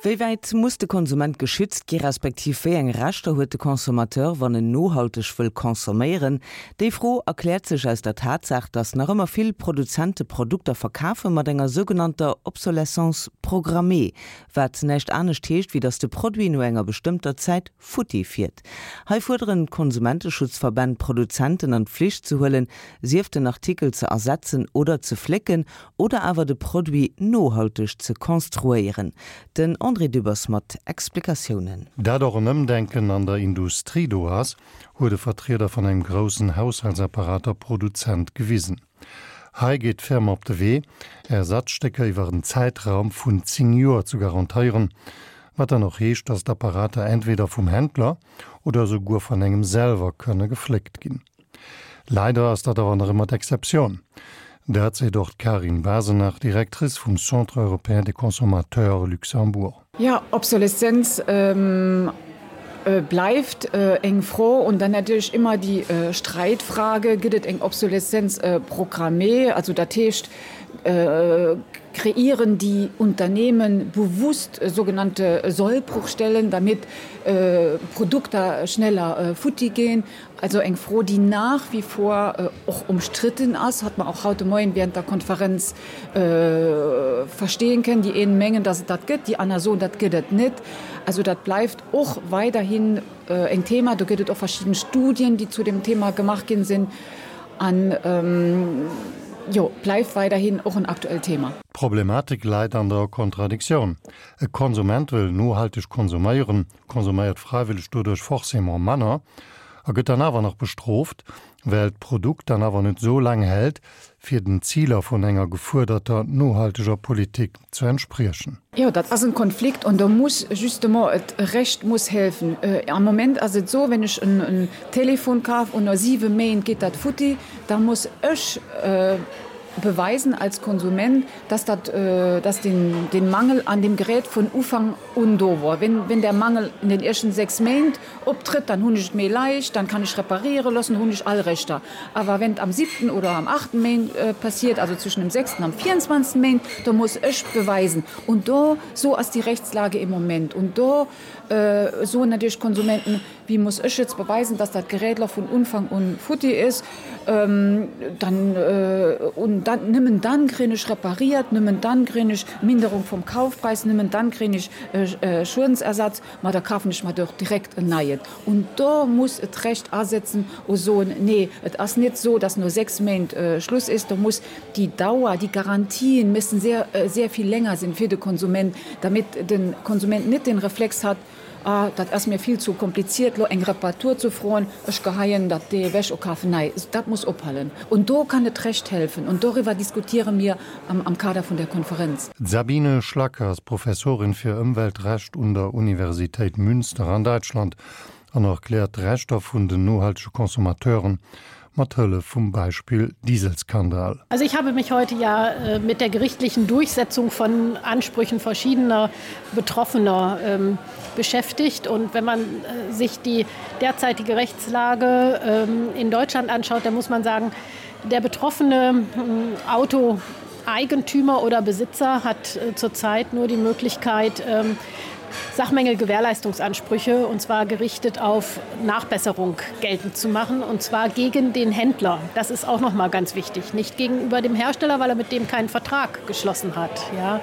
Wéi wäit muss de Konsument geschützt gi respektiv wéi eng Rechter huet de Consommateur, wann en nohalteg wëll consomméieren? Déi Fro erkläert sech aus der Tatsaach, datt nach ëmmer vill Produzente Produkter verkafe mat enger sougenannter Obsolescence programmée, wat näischt anescht heescht, wéi datt de Produit no enger bestëmmter Zäit futti fiert. Hei fuerderen d'Konsumenteschutzverbänn d'Produzenten an d'Pflicht ze huelen, sief den Artikel ze ersetzen oder ze flécken oder awer de Produit nohalteg ze konstruéieren. Den André Dübbers mat Explikatiounen. Dat och en Ëmdenken an der Industrie do ass, huet e Vertrieder vun engem groussen Haushaltsapparater-Produzent gewisen. Hei geet d'Firma op de Wee, Ersatzstécker iwwer en Zäitraum vun 10 Joer ze garantéieren, wat dann och heescht, dass d'Apparater entweder vum Händler oder esouguer vun engem selwer kënne gefléckt ginn. Leider ass dat awer nach ëmmer d'Exceptioun. Dat seet och d'Karin Basenach, Directrice vum Centre européen des consommateurs Luxembourg. Jo, Obsoleszenz bleift eng Fro und dann natierlech ëmmer déi Streitfrage, Gëtt et eng Obsoleszenz programmée? Also dat heescht, kreieren déi Unternehmen bewusst sogenannte Sollbruchstellen, damit Produkter schneller futti ginn? Also eng Fro, déi nach wie vor och umstritten ass, hat mer och haut de Moien während der Konferenz verstehen kënnen. Déi een mengen, dass et dat gëtt, déi aner soen, dat gëtt et net. Also dat bleift och weiderhin en Thema. Do gëtt et och verschidden Studien, déi zu dem Thema gemaach ginn sinn. An jo, bleift weiderhin och en aktuellt Thema. D'Problematik läit an der Kontradiktioun. E Konsument wëll nohalteg konsuméieren, konsuméiert fräiwëlleg doduerch forcément manner a gëtt dann awer nach bestrooft, well d'Produkt dann awer net sou laang hält, fir den Ziler vun enger gefuerderter nohalteger Politik ze entspriechen. Jo, dat ass en Konflikt an do muss justement et Recht muss helfen. Am Moment ass et esou, wenn ech en Telefon kaf an no 7 Méint geet dat futti, da muss ech beweisen als Konsument, dass dat, dass den, den Mangel an dem Gerät vun Ufank un do wor. Wenn, wenn der Mangel in den éischten 6 Méint optrëtt, dann hunn ech et méi leicht, dann kann ech repariere loossen, hunn ech all Rechter. Awer wenn et am siebten oder am achten Méint passiert, also zwischen dem sechsten am 24. Méint, do muss ech beweisen. Und do, so ass déi Rechtslage im Moment. Und do soen natierlech d'Konsumenten, Wéi muss ech jetzt beweisen, dass dat Gerät lo vun Unfang un futti is? Dann, un dann, nëmmen dann kréien ech repariert, nëmmen dann kréien ech Minderung vum Kaufpreis, nëmmen dann kréien ech Schuedensersatz, ma da kafen ech mer doch direkt en neien. Un do muss et Recht asetzen u soen, nee, et ass net so, dass no 6 Méint Schluss is, do muss déi Dauer, déi Garantien müssen sehr, sehr viel länger sinn fir de Konsument, damit de Konsument net den Reflex hat, Ah, dat ass mir vill zu kompliziert, lo eng Reparatur zu froen, ech geheien dat dee ewech a kafen nei. Dat muss ophalen. Und do kann et Recht helfen. Und doriwwer diskutiere mir am Kader vun der Konferenz. D'Sabine Schlacke ass Professorin fir Ëmweltrecht un der Universitéit Münster an Däitschland an erkläert d'Rechter vun den nohaltege Consommateuren mat Hëllef vum Beispill Dieselskandal. Also ich habe mich heute ja äh, mit der gerichtlichen Durchsetzung von Ansprüchen verschiedener Betroffener ähm, beschäftigt. Und wenn man äh, sich die derzeitige Rechtslage ähm, in Deutschland anschaut, dann muss man sagen, der betroffene ähm, Autoeigentümer oder Besitzer hat äh, zurzeit nur die Möglichkeit, ähm, Sachmängelgewährleistungsansprüche und zwar gerichtet auf Nachbesserung geltend zu machen und zwar gegen den Händler. Das ist auch noch mal ganz wichtig, nicht gegenüber dem Hersteller, weil er mit dem keinen Vertrag geschlossen hat. Ja.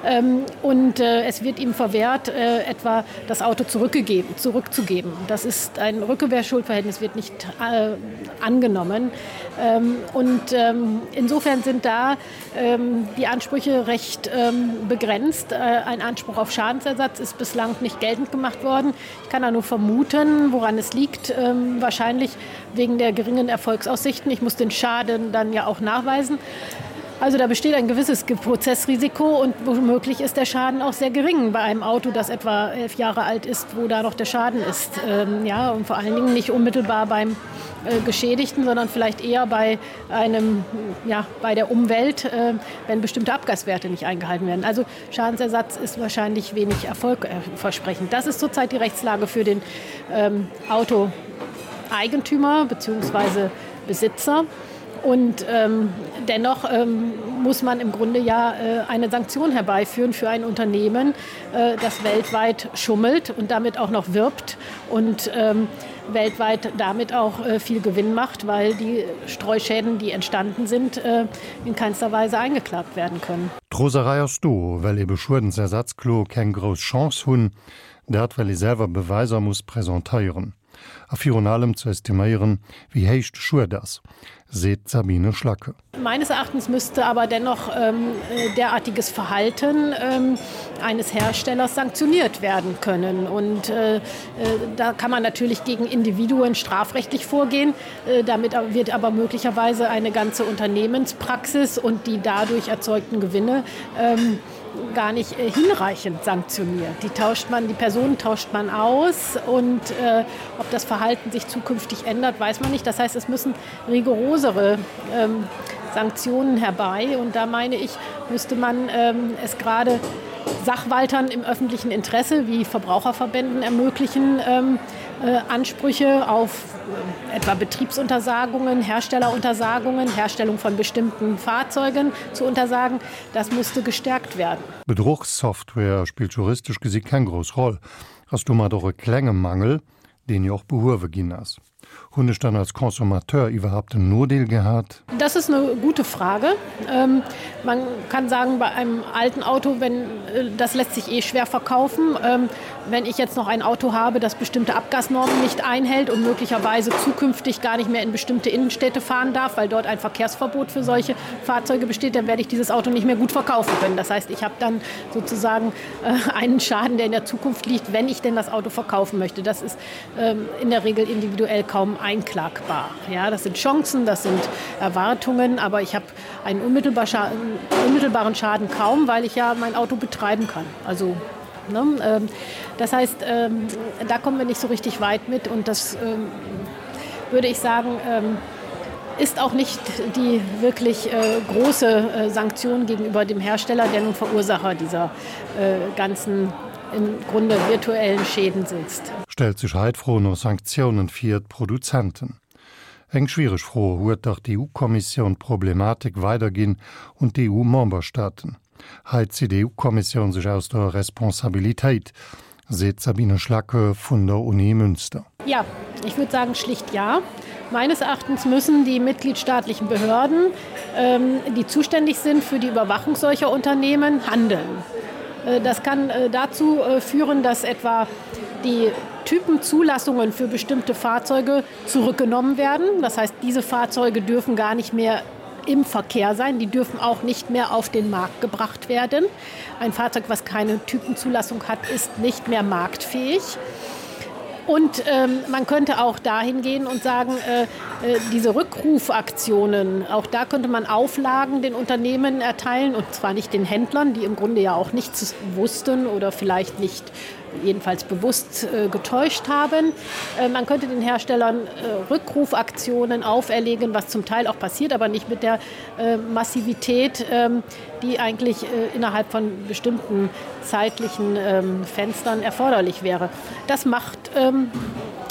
Ähm, und äh, es wird ihm verwehrt, äh, etwa das Auto zurückgegeben, zurückzugeben. Das ist ein Rückgewährschuldverhältnis wird nicht äh, angenommen. Ähm, und ähm, insofern sind da ähm, die Ansprüche recht ähm, begrenzt. Äh, ein Anspruch auf Schadensersatz ist bislang nicht geltend gemacht worden. Ich kann da nur vermuten, woran es liegt. Ähm, wahrscheinlich wegen der geringen Erfolgsaussichten. Ich muss den Schaden dann ja auch nachweisen. Also da besteht ein gewisses Prozessrisiko und womöglich ist der Schaden auch sehr gering bei einem Auto, das etwa elf Jahre alt ist, wo da noch der Schaden ist. Ähm, ja, und vor allen Dingen nicht unmittelbar beim äh, Geschädigten, sondern vielleicht eher bei einem, ja, bei der Umwelt, äh, wenn bestimmte Abgaswerte nicht eingehalten werden. Also Schadensersatz ist wahrscheinlich wenig erfolgversprechend. Das ist zurzeit die Rechtslage für den ähm, Autoeigentümer bzw. Besitzer. Und ähm, dennoch ähm, muss man im Grunde ja äh, eine Sanktion herbeiführen für ein Unternehmen, äh, das weltweit schummelt und damit auch noch wirbt und ähm, weltweit damit auch äh, viel Gewinn macht, weil die Streuschäden, die entstanden sind, äh, in keinster Weise eingeklagt werden können. D'Roserei ass do, well ebe Schuedensersatzkloe keng grouss Chance hunn, dat well ee selwer Beweiser muss presentéieren a virun allem ze estiméieren, wéi héich de Schued ass, seet d'Sabine Schlacke. Meines Erachtens müsste aber dennoch ähm, derartiges Verhalten ähm, eines Herstellers sanktioniert werden können. Und äh, äh, da kann man natürlich gegen Individuen strafrechtlich vorgehen. Äh, damit wird aber möglicherweise eine ganze Unternehmenspraxis und die dadurch erzeugten Gewinne ähm, gar nicht äh, hinreichend sanktioniert. Die tauscht man, die Personen tauscht man aus und äh, ob das Verhalten sich zukünftig ändert, weiß man nicht. Das heißt, es müssen rigorosere ähm, Sanktionen herbei und da meine ich, müsste man ähm, es gerade Sachwaltern im öffentlichen Interesse wie Verbraucherverbänden ermöglichen, ähm, äh, Ansprüche auf äh, etwa Betriebsuntersagungen, Herstelleruntersagungen, Herstellung von bestimmten Fahrzeugen zu untersagen. Das müsste gestärkt werden. Bedruchssoftware spillt juristesch gesi keng grouss Roll, ass domat och e klenge Mangel, deen jo och behuewe ginn ass. Hunn ech dann als Consommateur iwwerhaapt en Nodeel gehat? Das ist eine gute Frage. Ähm, man kann sagen, bei einem alten Auto, wenn, äh, das lässt sich eh schwer verkaufen. Ähm, wenn ich jetzt noch ein Auto habe, das bestimmte Abgasnormen nicht einhält und möglicherweise zukünftig gar nicht mehr in bestimmte Innenstädte fahren darf, weil dort ein Verkehrsverbot für solche Fahrzeuge besteht, dann werde ich dieses Auto nicht mehr gut verkaufen können. Das heißt, ich habe dann sozusagen äh, einen Schaden, der in der Zukunft liegt, wenn ich denn das Auto verkaufen möchte. Das ist ähm, in der Regel individuell kaum einklagbar. Ja, das sind Chancen, das sind Erwartungen, aber ich habe einen unmittelbar Scha unmittelbaren Schaden kaum, weil ich ja mein Auto betreiben kann. Also ne, ähm, das heißt, ähm, da kommen wir nicht so richtig weit mit und das ähm, würde ich sagen, ähm, ist auch nicht die wirklich äh, große äh, Sanktion gegenüber dem Hersteller, der nun Verursacher dieser äh, ganzen im Grunde virtuellen Schäden sitzt. Stellt sech hei d'Fro no Sanktiounen fir d'Produzenten. Eng schwiereg Fro, huet dach d'EU-Kommissioun d'Problematik weiderginn un d'EU-Memberstaaten. Hei zitt d'EU-Kommissioun sech aus der Responsabilitéit, seet d'Sabine Schlacke vun der Uni Münster. Ja, ich würde sagen schlicht ja. Meines Erachtens müssen die mitgliedstaatlichen Behörden, ähm, die zuständig sind für die Überwachung solcher Unternehmen, handeln. Äh, das kann äh, dazu äh, führen, dass etwa die Typenzulassungen für bestimmte Fahrzeuge zurückgenommen werden. Das heißt, diese Fahrzeuge dürfen gar nicht mehr im Verkehr sein. Die dürfen auch nicht mehr auf den Markt gebracht werden. Ein Fahrzeug, was keine Typenzulassung hat, ist nicht mehr marktfähig. Und ähm, man könnte auch dahin gehen und sagen, äh, äh, diese Rückrufaktionen, auch da könnte man Auflagen den Unternehmen erteilen und zwar nicht den Händlern, die im Grunde ja auch nichts wussten oder vielleicht nicht jedenfalls bewusst äh, getäuscht haben. Äh, man könnte den Herstellern äh, Rückrufaktionen auferlegen, was zum Teil auch passiert, aber nicht mit der äh, Massivität, äh, die eigentlich äh, innerhalb von bestimmten zeitlichen ähm, Fenstern erforderlich wäre. Das macht, ähm,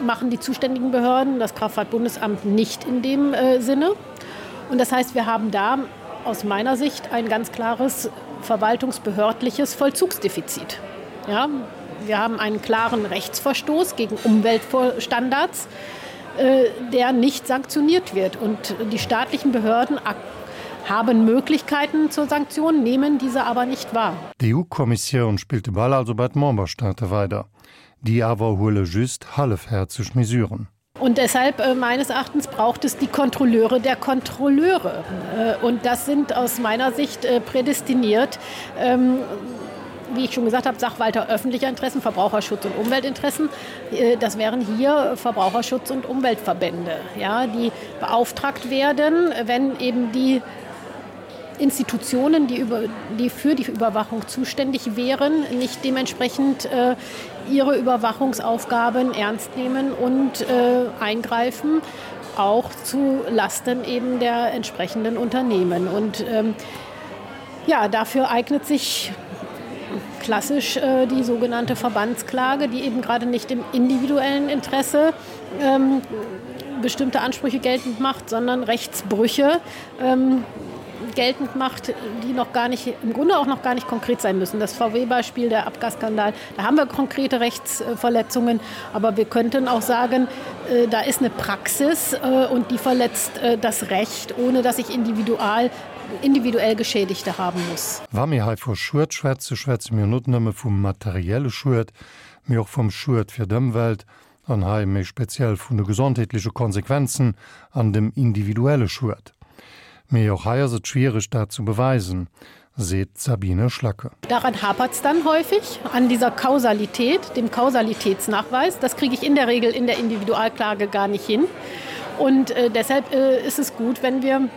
machen die zuständigen Behörden, das Kraftfahrtbundesamt nicht in dem äh, Sinne. Und das heißt, wir haben da aus meiner Sicht ein ganz klares verwaltungsbehördliches Vollzugsdefizit. Ja, wir haben einen klaren Rechtsverstoß gegen Umweltstandards, äh, der nicht sanktioniert wird. Und die staatlichen Behörden haben Möglichkeiten zur Sanktion, nehmen diese aber nicht wahr. D'EU-Kommissioun spillt de Ball also bei d'Memberstaate weider. Déi awer huele just hallefhäerzeg Mesuren. Und deshalb äh, meines Erachtens braucht es die Kontrolleure der Kontrolleure. Äh, und das sind aus meiner Sicht äh, prädestiniert, ähm, wie ich schon gesagt habe, Sachwalter öffentlicher Interessen, Verbraucherschutz und Umweltinteressen. Das wären hier Verbraucherschutz und Umweltverbände, ja, die beauftragt werden, wenn eben die Institutionen, die, über, die für die Überwachung zuständig wären, nicht dementsprechend äh, ihre Überwachungsaufgaben ernst nehmen und äh, eingreifen, auch zu Lasten eben der entsprechenden Unternehmen. Und ähm, ja, dafür eignet sich klassisch äh, die sogenannte Verbandsklage, die eben gerade nicht im individuellen Interesse ähm, bestimmte Ansprüche geltend macht, sondern Rechtsbrüche ähm, geltend macht, die noch gar nicht im Grunde auch noch gar nicht konkret sein müssen. Das VW-Beispiel, der Abgasskandal, da haben wir konkrete Rechtsverletzungen, aber wir könnten auch sagen, äh, da ist eine Praxis äh, und die verletzt äh, das Recht, ohne dass ich individual individuell Geschädigte haben muss. Wa mir hei vu Schued schwätze, schwätze mir net nëmme vum materielle Schued, mee och vum Schued fir d'Ëmwelt, an hei méi speziell vun de gesondheetleche Konsequenzen an dem individuelle Schued. Mee och hei ass et schwiereg, dat ze beweisen, seet d'Sabine Schlacke. Daran hapert es dann häufig, an dieser Kausalität, dem Kausalitätsnachweis. Das kriege ich in der Regel in der Individualklage gar nicht hin. Und äh, deshalb äh, ist es gut, wenn wir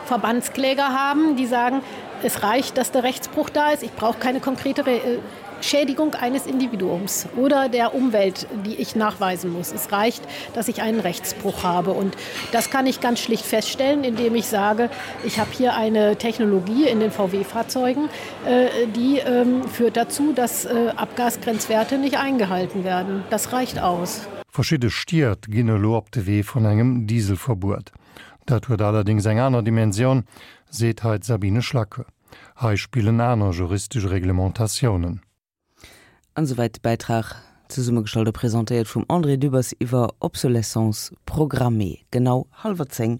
Verbandskläger haben, die sagen, es reicht, dass der Rechtsbruch da ist. Ich brauche keine konkrete Re äh, Schädigung eines Individuums oder der Umwelt, die ich nachweisen muss. Es reicht, dass ich einen Rechtsbruch habe. Und das kann ich ganz schlicht feststellen, indem ich sage, ich habe hier eine Technologie in den VW-Fahrzeugen, äh, die ähm, führt dazu, dass äh, Abgasgrenzwerte nicht eingehalten werden. Das reicht aus. Verschidde Stied ginn elo op de Wee vun engem Dieselverbuet. Dat huet allerdéngs eng aner Dimensioun, seet hei d'Sabine Schlacke. Hei spillen aner juristesch Reglementatiounen. An esouwäit de Bäitrag, zesummegestallt a presentéiert vum André Dübbers iwwer Obsolescence programmée. Genau hallwer 10.